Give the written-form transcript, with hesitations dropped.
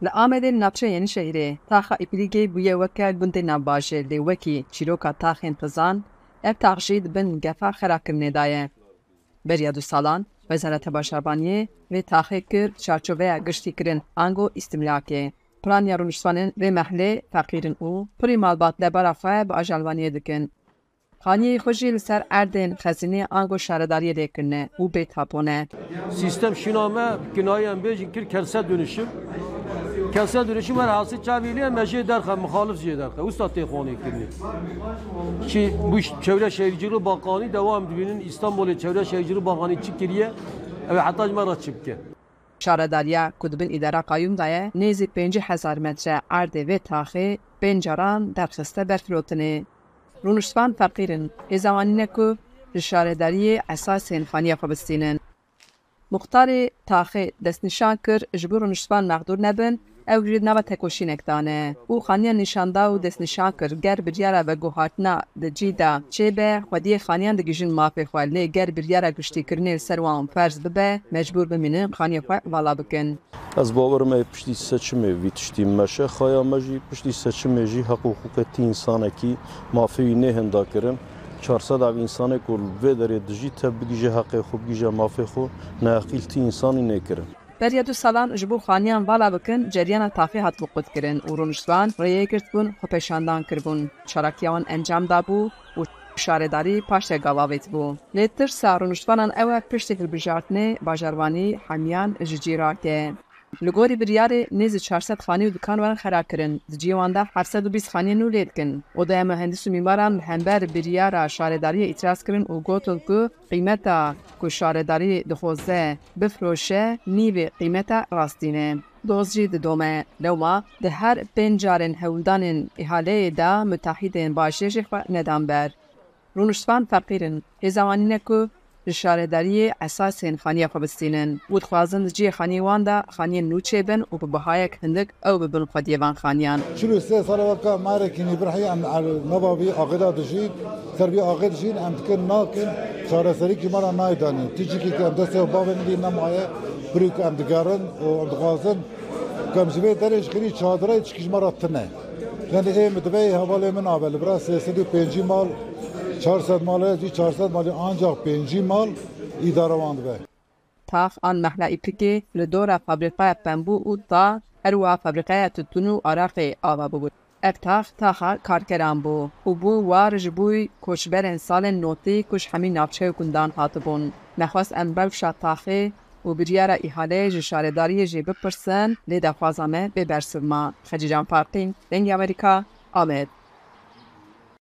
Li Amedê li navçeya Yenîşehîrê taxa Îplîgê bûye weke gundê navbajêr lê wekî çîroka taxên xizan ev tax jî di bin gefa xerakirinê de ye. Beriya du salan Wezareta Bajarvaniyê vê taxê kir çarçoveya giştîkirin ango îstimlakê. Piraniya rûniştvanên vê mehlê feqîr in û pirî malbat debara xwe bi ajalvaniyê dikin. Xaniyê xwe jî li ser erdên xezînê ango şaredariyê lê kirine û bê tapo ne. Sîstem şîna me bi kinayê em bêjin kir kentsel dönüşüm. Kentsel dönüşüm her hasî çavî lê me jê derxe mixalif jê derxe. Wisa tê xanê kirinê. Çi bu Çevre Şehirciliği Bakanî devam dibînin Îstanbulê Çevre Şehirciliği Bakanî çi kiriye ew ê heta ji me re çi bike. Şaredariya ku di bin îdara qayûm de ye nêzî 50,000 metre erdê vê taxê pênc caran derxiste ber firotinê. Rûniştvan feqîr in, hêza wan nîne ku ji şaredariyê esasên xaniya xwe bistînin. Muxtarê taxê destnîşan kir ji bo rûniştvan mexdûr nebin ew jî di nava tekoşînek de ne û xaniyan nîşan da û destnîşan kir ger biryara veguhartina di cî de çêbe xwediyê xaniyan digihîjin mafê xwe lê ger biryara giştîkirinê li ser wan ferz bibe mecbûr bimînin xaniyê xwe vala bikin. Ez bawer im ê piştî seçimê vî tiştî meşe xaya me jî piştî seçimê jî heq û hiqûqê ti însanekî mafê wî nêhinda kirin. 400 ev însanê ku li vê derê dijî tev bigihîje heqê xwe bigihîje mafê xwe neheqî li ti însanî nêkirin. Beriya du salan ji bo xaniyan vala bikin ceryana taxê hatibû qutkirin û rûniştvan rêyê girtibûn xwepêşandan kiribûn. Çalakiya wan encam dabû û şaredarî paşde gav avêtibû. Lê tirsa rûniştvanan ew e piştî hilbijartinê bajarvanî hemiyan ji cî rake. Li gorî biryarê nêzî 400 xanî û dikan werin xerakirin. Di ciyê wan de 720 xaniyên nû lê dikin. Odeya Muhendis û Mîmaran li hember biryara şaredariyê îtiraz kirin û gotin ku qîmeta ku şaredarî dixwaze bifiroşe nîvê qîmeta rastîn e. Doz jî didome. Lewma di her pênc carên hewldanên îhaleyê de mutehîdên bajêr jî xwe nedan ber. Rûniştvan feqîr in, hêza wan nîne ku ji şaredariyê esasên xaniya xwe bistînin û dixwazin di cihê xaniyê wan de xaniyên nû çêbin û bi bihayek hindik ew bibin xwediyê van xaniyan. 43 sal e weke marekî nîbirhî em li nava vî axê de dijîn, ser vî axê dijîn, em dikin nakin çareserî ji me re nayê danîn. Ti cihekî ku em destê xwe bavên lê nemaye, birî ku em digerin û em dixwazin ku em ji vê derê ji xêrî çadirê tişkî ji me re tune. Yani ê min divê hevalê min abe li bira 350 mal 400 mal e jî 400 malî ancak 50 mal îdare wan dibe. Tax an mehla Îplikê li dora fabrîkaya pembû û ta her wiha fabrîkaya titûn û araqê ava bûbû. Ev tax taxa karkeran bû û bû war ji bo koçberên salên notî ku ji hemî navçe û gundan hatibûn. Me xwest em rewşa taxê û biryara îhaleyê ji şaredariyê jî bipirsin lê daxwaza me bê bersiv ma. Xecîcan Farqîn, Dengê Amerîka, Amed.